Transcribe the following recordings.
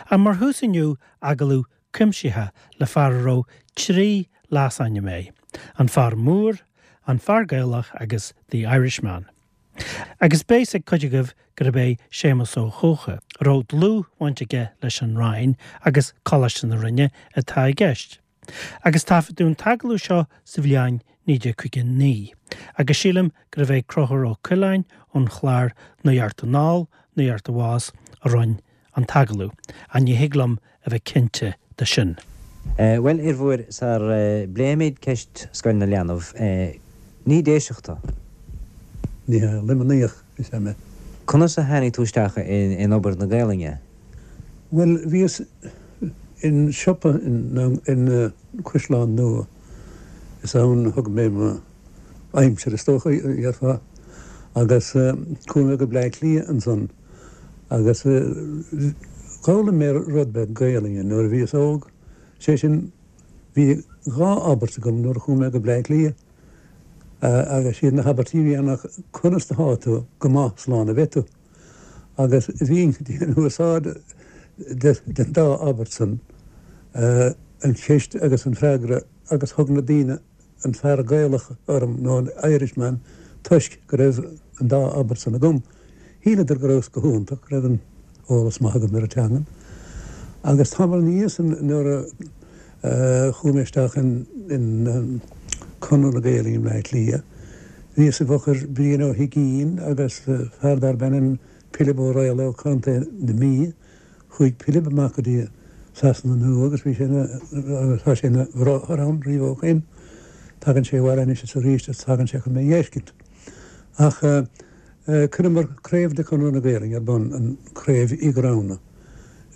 Ach mar thús inniu, agallamh cuimsitheach le fear a raibh 3 leasainm air, An Fear Mór, An Fear Gaelach agus The Irishman. Agus beidh a fhios ag cuid agaibh gurb é Séamus Ó hEocha, a raibh dlúthbhaint aige leis an Rinn agus Coláiste na Rinne, atá i gceist. Agus taifeadadh an t-agallamh seo sa bhliain 1959, agus sílim gurbh é Conchúr Ó Coileáin ón chlár Nuacht Anall, Nuacht Abhus a rinne an t-agallamh, ach ní thig liom a bheith cinnte de sin. Bhuel, a fhir mhóir, sar bpléimid ceist Scoil na Leanbh, ní Déiseach tú? Ní hea, Luimníoch is ea mé. Conas a tháinig tú isteach in obair na Gaelainne? Bhuel, bhíos in siopa in Caisleán Nua, is ann a thug mé mo aimsir is dócha, dhéarfá, agus chuaigh mé go Bleá Cliath ansan agus d'fhoghlaim mé rud beag Gaelainne nuair a bhíos óg, sé sin, bhí dhá abairt agam nuair a chuaigh mé go Bleá Cliath agus siad na habairtí a bhí ann ná conas atá tú, go maith, slán a bheidh tú. Agus bhínn ag déanamh úsáid den dá abairt san, an cheist agus an freagra, agus thug na daoine an fear Gaelach orm, nó an Irishman, toisc go raibh an dá abairt san agam. Shíleadar go rabhas go hiontach, go raibh an eolas maith agam ar an teangain. Agus tamall ina dhiaidh san nuair a chuaigh mé isteach in Conradh na Gaelainne i mBleá Cliath, bhíos i bhfochair Brian Ó hUigínn agus fear darb ainm Pilib Ó Raghallaigh ó Chontae na Mí. Chuaigh Pilib amach go dtí Sasana Nua agus bhí sé ina, agus tá sé ina bhráthair ann riamh ó shoin. Tagann sé abhaile anois is arís is tagann sé chun mé dh'fheiscint. Ach chuireamar craobh de Chonradh na Gaelainne ar bun, an Craobh Uí Ghramhna.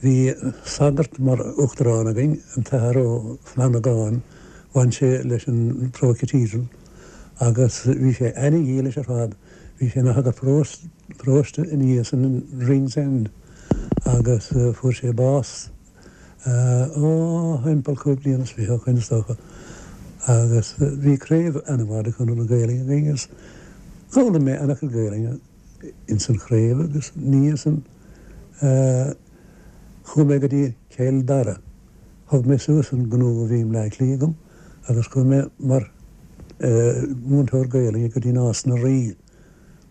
Bhí sagart mar uachtarán againn, an tAthair Ó Flannagáin, bhain sé leis an Pro Cathedral agus bhí sé ana-dhílis ar fad. Bhí sé ina shagart paróiste ina dhiaidh san in Ringsend agus fuair sé bás ó thimpeall chúig bliana is fiche ó shoin is dócha agus bhí craobh ana-mhaith de Chonradh na Gaelainne againn agus d'fhoghlaim mé ana-chuid Gaelainne ins an chraobh agus ina dhiaidh san chuaigh mé go dtí Cill Dara. Thug mé suas an gnó a bhí i mBleá Cliath agam agus chuaigh mé mar mhúinteoir Gaelainne go dtí Nás na Rí,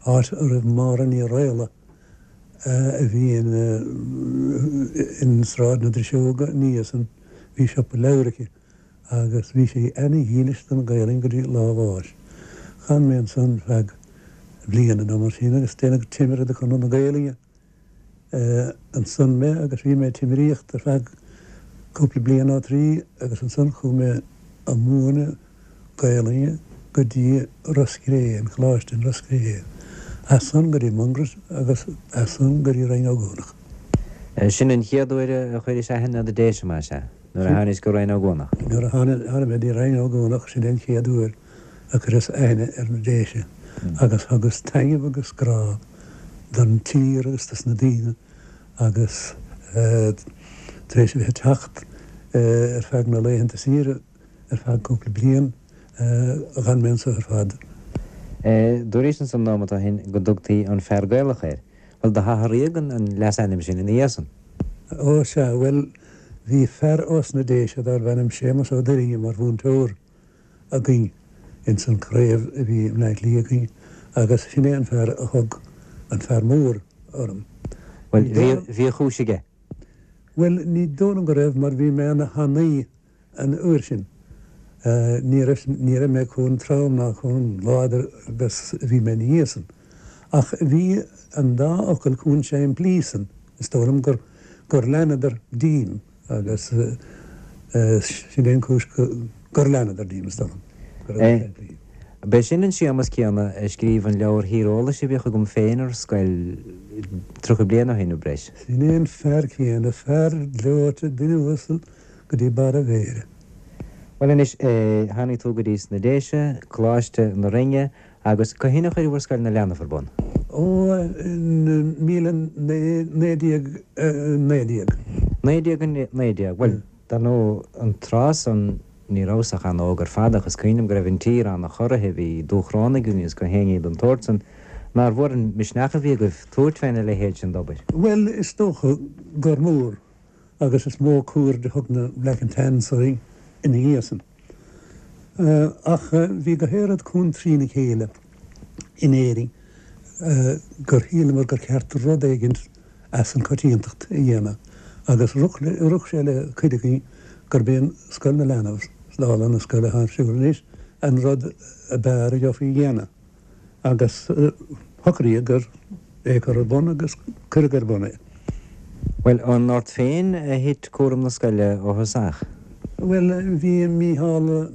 áit a raibh Máire Ní Raghallaigh a bhí in Sráid na Driseoga ina dhiaidh san, bhí siopa leabhar aici agus bhí sí ana-dhílis don Ghaelainn go dtí lá a bháis. D'fhan mé ansan feadh bliana nó mar sin agus déanadh timire de Chonradh na Gaelainne. ansan mé agus bhí mé ag timiríocht ar feadh cúpla bliain nó trí agus ansan chuaigh mé a múineadh Gaelainne go dtí Ros Cré, an Coláiste in Ros Cré, as san go dtí Mungairit agus as san go dtí Rinn Ó gCuanach. Sin an chéad uair a chuiris aithne ar na Déise, más ea, nuair a tháinis go Rinn Ó gCuanach? Nuair a tháinig mé dtí Rinn Ó gCuanach, sin é an chéad uair. a chuireas aithne ar na Déise agus thugas taitneamh agus grá don tír agus dos na daoine agus tar éis a bheith ag teacht ar feadh na laethanta saoire ar feadh cúpla bliain dh'fhan mé anso ar fad. Dúraís ansan nóimeat ó shin go dtugtaí an fear Gaelach air. Bhuel, do hathraíodh an leasainm sin ina dhiaidh san. Ó sea, bhuel, bhí fear ós na Déise darbh ainm Séamus Ó Doirinne mar mhúinteoir. againn ins an chraobh a bhí i mBleá Cliath againn agus sin é an fear a thug an fear mór orm. Bhuel, bhí, bhí a chúis aige. Bhuel, ní dóigh liom go raibh mar bhí mé ana thanaí an uair sin. Ní raibh, ní raibh mé chomh trom ná chomh láidir agus a bhí mé ina dhiaidh san. Ach bhí an dá fhocal chomh simplí san, is dóigh liom gur, gur leanadar díom. Agus sin é an chúis gur leanadar díom, is dóigh liom, go raibh sé simplí. B'é sin an Séamas céanna a scríobh an leabhar thíreolais a bhíodh agam féin ar scoil 30 bliain ó shin nó breis. Sin é an fear céanna, fear gleoite, duine uasal go dtí barr a mhéire. Bhuel anois, tháinig tú go dtí sna Déise, Coláiste na Rinne, Agus cathain a chuireabhair Scoil na Leanbh ar bun? Ó, in 1919. 1919. Bhuel, dar ndóigh, an tráth san ní rabhas ach an-óg ar fad ach is cuimhin liom go raibh an tír an-chorraithe, bhí dúshrón againn agus gach aon ní den tsórt san. Nár mhór an misneach a bhí agaibh tabhairt féna leithéid sin d'obair? Bhuel, is dócha gur mór. agus is mó cuaird a thug na Black and Tans orainn ina dhiaidh san. Ach bhí go hoiread contrí na chéile in Éirinn gur shíleamar gur cheart rud éigint as an choitiantacht a dhéanamh agus rug sé le cuid againn gurb é an Scoil na Leanbh, dála na scoile atá ar siúl anois, an rud ab fhearr a gheofaí a dhéanamh. Agus shocraíodh gur é a chur ar bun agus cuireadh ar bun é. Bhuel, an ort féin a thit cúram na scoile ó thosach? Bhuel, bhí Mícheál,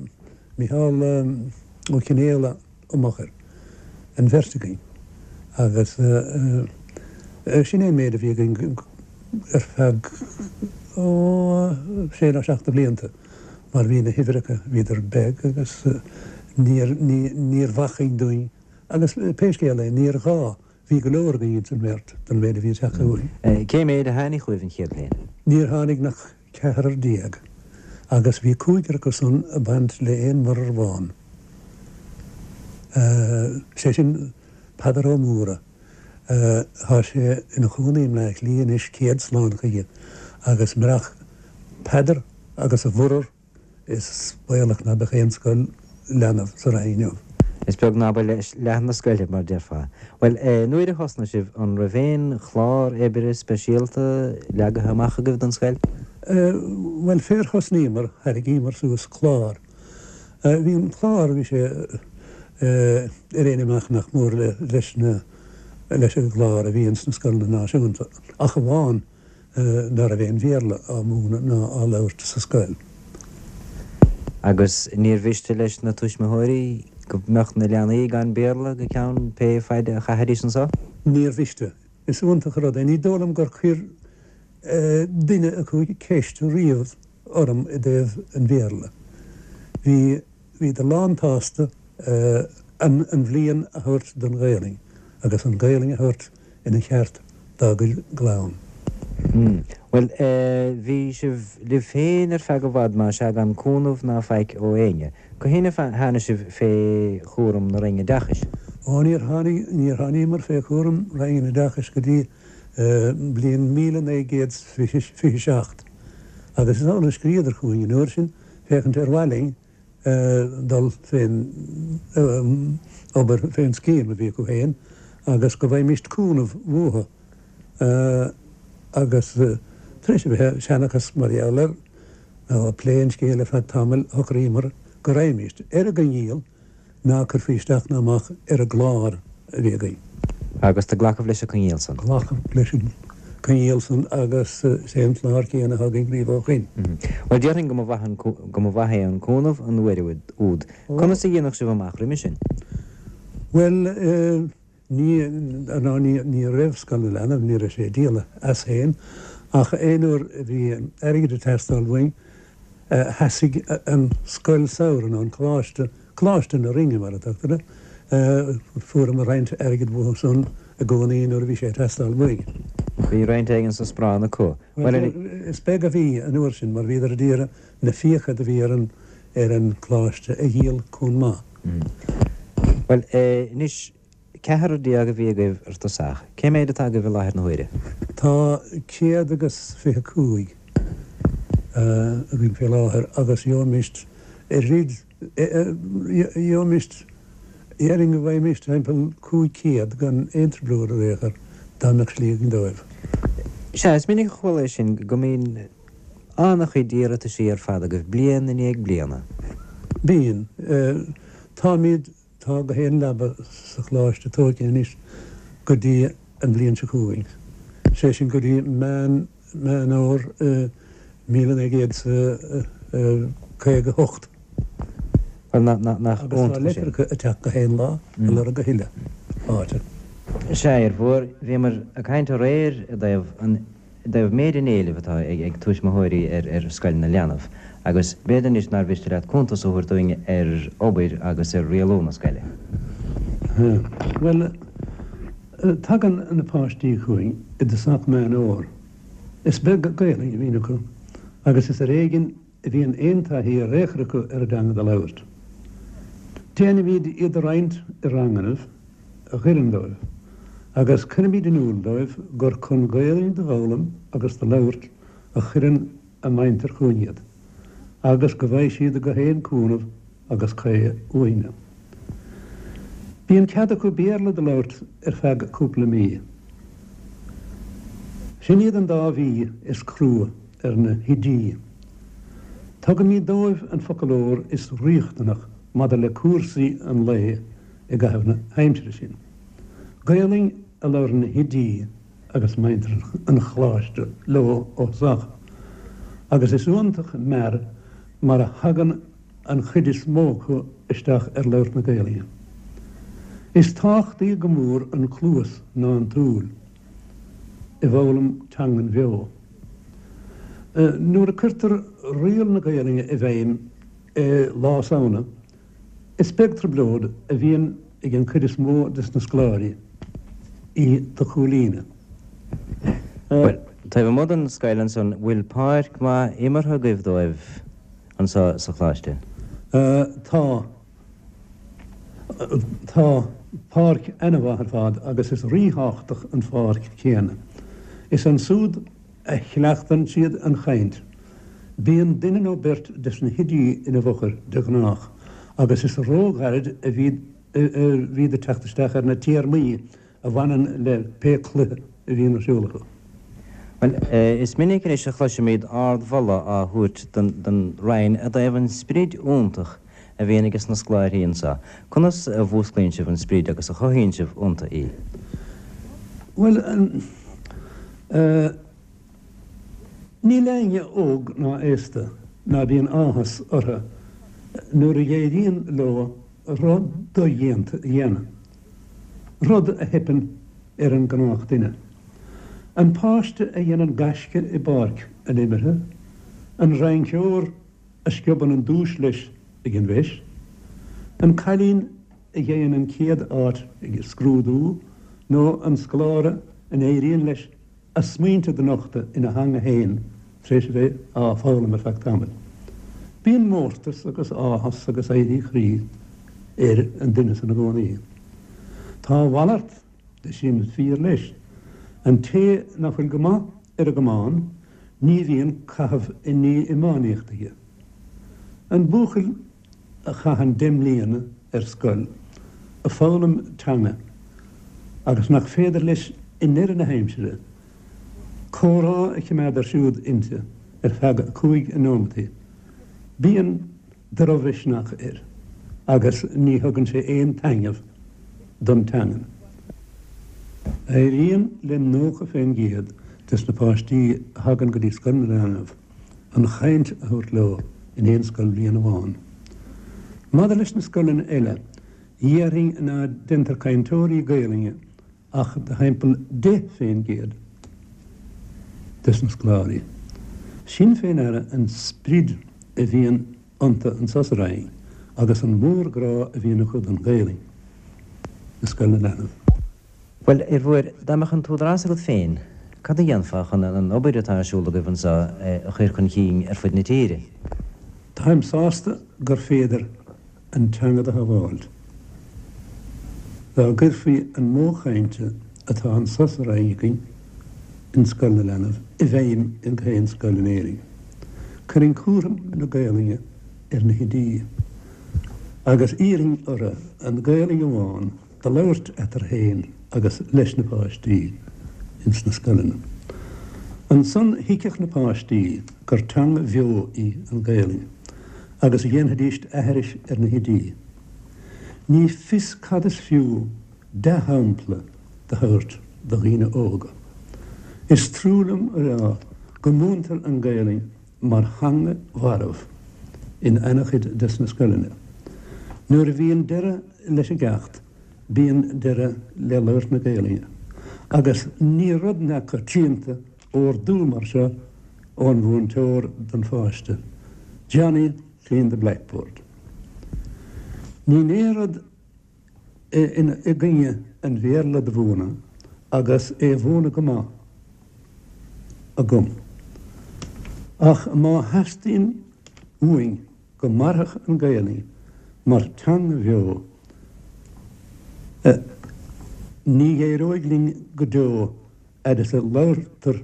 Mícheál Ó Cionfhaola amach air, an bheirt againn, agus sin é an méid a bhí againn ar feadh, ó, sé nó seacht de bhlianta, mar bhí na huimhreacha, bhíodar beag agus níor, níor bhacainn dúinn, agus pé scéal é, níor ghá, bhí go leor againn ins an mbeirt don mhéid a bhí ag teacht chugainn. Cé méid a tháinig chugaibh an chéad bhliain? Níor tháinig ach ceathrar déag, agus bhí cúigear acu san ag baint le aon mhuirear amháin, sé sin Peadar Ó Mórdha. Tá sé ina chónaí i mBleá Cliath anois, céad slán chuige, agus murach Peadar agus a mhuirear is baolach ná beadh aon scoil leanbh sa Rinn inniu. Is beag ná ba leath na scoile, mar déarfá. Bhuel, nuair a thosnaigh sibh, an raibh aon chlár oibre speisialta leagaithe amach agaibh don scoil? Bhuel, fér thosnaíomar, tharraingíomar suas clár. Bhí an clár, bhí sé ar aon imeacht nach mór leis na, leis an gclár a bhí ins na scoileanna náisiúnta, ach amháin ná raibh aon Bhéarla á mhúineadh ná á labhairt sa scoil. Agus níor mhiste leis na tuismitheoirí go mbeadh na leanaí gan Béarla go ceann pé faide a chaithfidís anso? Níor mhiste. Is iontach an rud é. Ní dóigh liom gur chuir duine acu ceist riamh orm i dtaobh an Bhéarla. Bhí, bhíodar lán-tsásta an, an bhliain a thabhairt don Ghaelainn agus an Ghaelainn a thabhairt ina cheart dá gcuid gclann. Bhuel, bhí sibh libh féin ar feadh i bhfad, más ea, gan cúnamh ná faic ó éinne. Cathain a tháinig sibh fé chúram na Roinne Oideachais? Ó, níor tháinig, níor tháiníomar fé chúram Roinn an Oideachais go dtí bliain 1927 agus is amhlaidh a scríodar chugainn an uair sin féachaint ar mhaith linn dul fén obair, fén scéim a bhí acu féin agus go bhfaighimíst cúnamh uathu agus tar éis a bheith ag seanchas mar gheall air nó ag plé an scéil ar feadh tamaill shocraíomar go raghaimíst ar an gcoinníoll ná cuirfí isteach ná amach ar an gclár a bhí againn. Agus do glacadh leis an gcoinníoll san. Glacadh leis an gcoinníoll san agus is é an clár céanna atá againn riamh ó shoin. Bhuel, déarfainn go mba mhaith an, go mba mhaith é an cúnamh an uair úd. Conas a dhéanadh sibh amach roimhe sin? Bhuel, Ní, ná ní, ní raibh Scoil na Leanbh, ní raibh sé ag díol as féin, ach aon uair a bhí airgead ag teastáil uainn, sheasaigh an scoil samhraidh, nó an coláiste, Coláiste na Rinne mar a tugtar air, fuaireamar roinnt airgid uathu san i gcónaí nuair a bhí sé ag teastáil uainn. Bhí roinnt éigin sa sparán acu. Bhuel, is beag a bhí an uair sin mar bhíodar ag iarraidh na fiacha do bhí ar an, ar an gcoláiste a dhíol chomh maith. Bhuel, anois, ceathrar déag a bhí agaibh ar tosach. Cé méid atá agaibh i láthair na huaire? Tá 125 againn fé láthair agus gheobhaimíst oiread, gheobhaimíst, déarfainn go bhfaighimíst timpeall 500 gan aon trioblóid ar aon chor dá mbeadh slí againn dóibh. Sea, is minic a chuala é sin, go mbíonn an-chuid iarrataisí ar fad agaibh bliain i ndiaidh bliana. Bíonn. Táimid, tá gach aon leaba sa choláiste tógtha anois go dtí an bhliain seo chugainn, sé sin go dtí Meán, Meán Fhómhair 1958. Bhuel, nach Agus tá iontach sin. litreacha ag teacht gach aon lá ag lorg a thuilleadh áite. Sea, a fhir mhóir, bhíomar ag caint aréir i dtaobh an i dtaobh méid an éilimh atá ag tuismitheoirí ar Scoil na Leanbh agus b'fhéidir anois nár mhiste leat cuntas a thabhairt dúinn ar obair agus ar rialú na scoile. Bhuel, tagann na páistí chugainn i dtosach Meán Fhómhair. Is beag Gaelainn a bhíonn acu agus is ar éigean a bhíonn aon taithí ar aon chor acu ar an dteanga do labhairt. Déanaimíd iad a roinnt i rangannaibh a dh'oireann dóibh, agus cuirimíd in iúl dóibh gur chun Gaelainn do fhoghlaim agus do labhairt a chuireann a muintir chugainn iad, agus go bhfaighidh siad gach aon cúnamh agus caoi uainne. Bíonn cead acu Béarla do labhairt ar feadh cúpla mí. Sin iad an dá mhí is crua ar na hoidí. Tugaimid dóibh an foclóir is riachtanach maidir le cúrsaí an lae i gcaitheamh na haimsire sin. Gaolainn a labhrann na hoidí agus muintir an Choláiste leo ó thosach, agus is iontach mear mar a thagann an chuid is mó acu isteach ar labhairt na Gaolainne. Is tábhachtaí go mór an cluas ná an tsúil i bhfoghlaim teangan bheo. Nuair a cuirtear riail na Gaolainne i bhfeidhm i Lá Samhna, Is beag trioblóid a bhíonn ag an chuid is mó des na scoláirí í do chomhlíonadh. Bhuel, taobh amuigh den scoil ansan, bhfuil páirc mhaith imeartha agaibh dóibh anso sa Choláiste? Tá. Tá páirc ana-mhaith ar fad agus is ríthábhachtach an pháirc chéanna. Is ansúd a chleachtann siad an chaint. Bíonn duine nó beirt des na hoidí ina bhfochair de ghnách agus is róghairid a bhíd ag teacht isteach ar na téarmaí a bhaineann le pé cluiche a bhíonn ar siúl acu. Bhuel, is minic anois a chloisimid ardmholadh á thabhairt don Roinn i dtaobh an sprid iontach a bhíonn ages na scoláirí anseo. Conas a mhúsclaíonn sibh an sprid agus a chothaíonn sibh iontu í? Bhuel, níl éinne óg ná aosta ná bíonn áthas orthu nuair a éiríonn leo rud dodhéanta a dhéanamh, rud a theipeann ar an ngnáthdhuine. An páiste a dhéanann gaisce i bpáirc an imeartha, an rinceoir a sciobann an duais leis ag an bhfeis, an cailín a gheibheann an chéad áit ag scrúdú nó an scoláire a n-éiríonn leis a smaointe do nochtadh ina theanga féin tar éis a bheith á foghlaim ar feadh tamaill. Bíonn mórtas agus áthas agus éirí chroí ar an duine san i gcónaí. Tá a mhalairt de sin fíor leis. An té ná fuil go maith ar an gcamán ní bhíonn caitheamh i ndiaidh iománaíocht aige. An buachaill a chaitheann 10 mbliana ar scoil ag foghlaim teanga agus nach féidir leis i ndeireadh na haimsire comhrá a chimeád ar siúd inti ar feadh 5 nóimeataí, bíonn drochmhisneach air agus ní thugann sé aon taitneamh don teangain. Éiríonn le 90% des na páistí a thagann go dtí Scoil na Leanbh an chaint a thabhairt leo in aon scoilbhliain amháin. Maidir leis na scoileanna eile, dhéarfainn ná deintear cainteoirí Gaelainne ach de thimpeall 10% des na scoláirí. Sin fé ndeara an sprid a bhíonn iontu anso sa Rinn agus an mórghrá a bhíonn acu don Ghaelainn i Scoil na Leanbh. Bhuel, a Fhir Mhóir, dá mbeadh an t-údarás agat féin, cad a dhéanfá chun an obair atá ar siúl agaibh anseo a chur chun cinn ar fud na tíre? Táim sásta gur féidir an teanga do shábháilt. Dá gcuirfí an modh cainte atá anso sa Rinn againn in Scoil na Leanbh i bhfeidhm in gach aon scoil in Éirinn, chuirfinn cúram na Gaelainne ar na hoidí agus iarrfainn orthu an Ghaelainn amháin do labhairt eatarthu féin agus leis na páistí ins na scoileanna. Ansan thuigfeadh na páistí gur teanga bheo í an Ghaelainn agus dhéanfaidíst aithris ar na hoidí. Ní fios cad is fiú dea-shampla do thabhairt do dhaoine óga. Is trua liom a rá go múintear an Ghaelainn mar theanga mharbh in ana-chuid des na scoileanna. Nuair a bhíonn deireadh leis an gceacht, bíonn deireadh le labhairt na Gaelainne. Agus ní rud neamhchoitianta ordú mar seo ón mhúinteoir don pháiste, Johnny, clean the blackboard. Níl aon rud i gcoinne an Bhéarla do mhúineadh agus é a mhúineadh go maith agam. Ach má theastaíonn uainn go mairfeadh an Ghaelainn mar teanga bheo, ní éireoidh linn go deo fhad is a labhartar.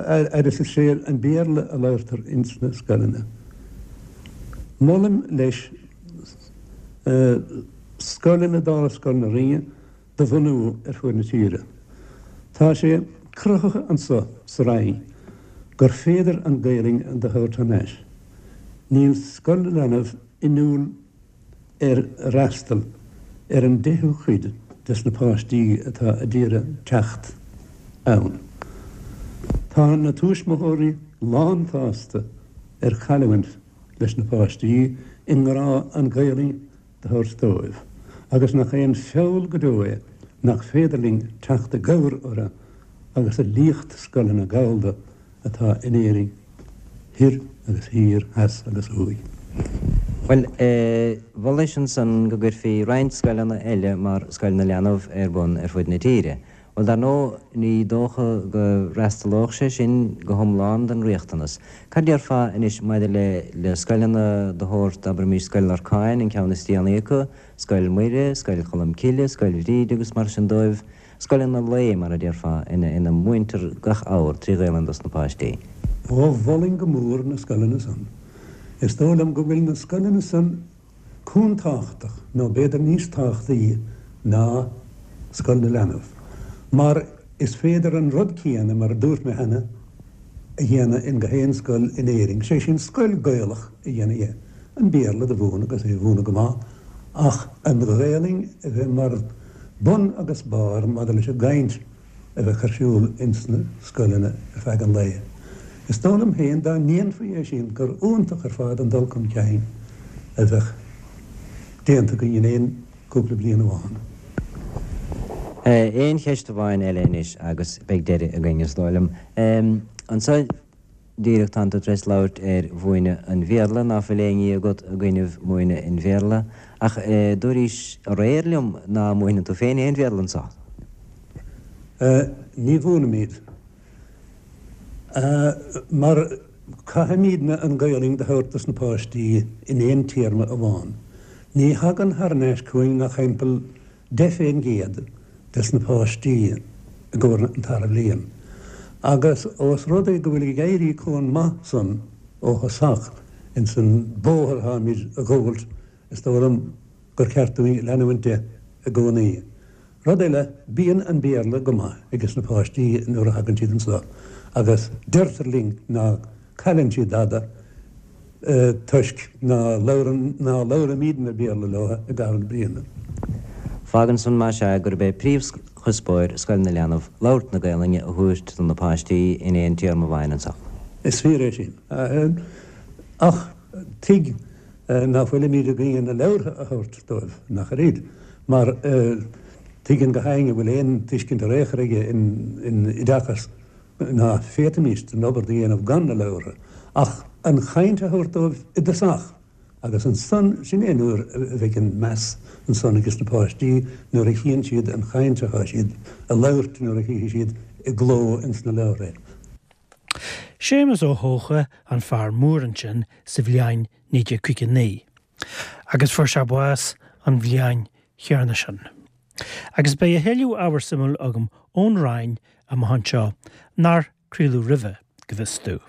Fhad is is é an Béarla a labhartar ins na scoileanna. Molaim leis scoileanna dála Scoil na Rinne do bhunú ar fuaid na tíre. Tá sé cruthaithe anso sa Rinn gur féidir an Ghaelainn do thabhairt thar n-ais. Níl Scoil na Leanbh inniúil ar fhreastal ar an deichiú cuid des na páistí atá a d'iarraidh teacht ann. Tá na tuismitheoirí lán-tsásta ar chailliúint leis na páistí i ngrá an Ghaelainn do thabhairt dóibh, agus nach é an feall go deo é nach féidir linn teacht i gcabhair orthu agus a liacht scoileanna Gallda atá in Éirinn thoir agus thiar, theas agus thuaidh. Bhuel, mholais ansan go gcuirfí roinnt scoileanna eile mar Scoil na Leanbh ar bun ar fud na tíre. Bhuel, dar ndóigh, ní dócha go bhfreastalódh sé sin go hiomlán don riachtanas. Cad déarfá anois maidir le le scoileanna de shórt, abraimis, Scoil Lorcáin, an ceann is déanaí acu, Scoil Mhuire, Scoil Cholm Cille, Scoil Bhríde agus mar sin dóibh, Scoileanna lae, mar a déarfá, ina múintear gach ábhar trí Ghaelainn dos na páistí. Ó, mholfainn go mór na scoileanna san. Is dóigh liom go bhfuil na scoileanna san chomh tábhachtach, nó b'fhéidir níos tábhachtaí ná Scoil na Leanbh, mar is féidir an rud céanna, mar a dúirt mé cheana, a dhéanamh in gach aon scoil in Éirinn, sé sin scoil Gaelach a dhéanamh dhe, an Béarla do mhúineadh agus é a mhúineadh go maith, ach an Ghaelainn a bheith mar bun agus barr maidir leis an gcaint a bheadh ar siúl ins na scoileanna ar feadh an lae. Is dóigh liom féin dá ndéanfaí é sin gur iontach ar fad an dul chun cinn a bheadh déanta againn in aon cúpla bliain amháin. Aon cheist amháin eile anois agus beidh deireadh againn, is dóigh liom. Anso díreach tánn tú tar éis labhairt ar mhúineadh an Bhéarla, ná fuil aon ní agat i gcoinnibh múineadh an Bhéarla, ach dúraís aréir liom ná múineann tú féin aon Bhéarla anso. Ní mhúinimid. Mar caithfimídne an Ghaelainn do thabhairt dos na páistí in aon téarma amháin. Ní thagann thar n-ais chugainn ach thimpeall 10% des na páistí i gcomhair an tara bhliain. Agus ós rud é go bhfuil ag éirí chomh maith san ó thosach ins an bóthar atáimid a ghabhailt, is dóigh liom gur ceart dúinn leanúint de i gcónaí. Rud eile, bíonn an Béarla go maith ages na páistí nuair a thagann siad anso agus deirtear linn ná cailleann siad dada toisc ná labhraímídne Béarla leo i gcaitheamh na bliana. Fágann san, más ea, gurb é príomhchuspóir Scoil na Leanbh labhairt na Gaelainne a thabhairt do na páistí in aon téarma amháin anso. Is fíor é sin. Ach tuig ná fuilimíd i gcoinne na leabhartha a thabhairt dóibh, nach ar iad, mar tuigeann gach éinne a bhfuil aon tuiscint ar aon chor aige in oideachas ná féadfaimíst an obair do dhéanamh gan na leabhartha, ach an chaint a thabhairt dóibh i dtosach, agus ansan, sin é nuair a bheidh an meas ansan ages na páistí, nuair a chíonn siad an chaint atá siad a labhairt, nuair a chífidh siad i gcló ins na leabhartha é. Séamus Ó hEocha an fear mór ansin sa bhliain 1959 agus fuair sé bás an bhliain chéanna sin. Agus beidh a thuilleadh ábhar suimiúil agam ón Rinn amach anseo nár craoladh roimhe, go bhfios domh.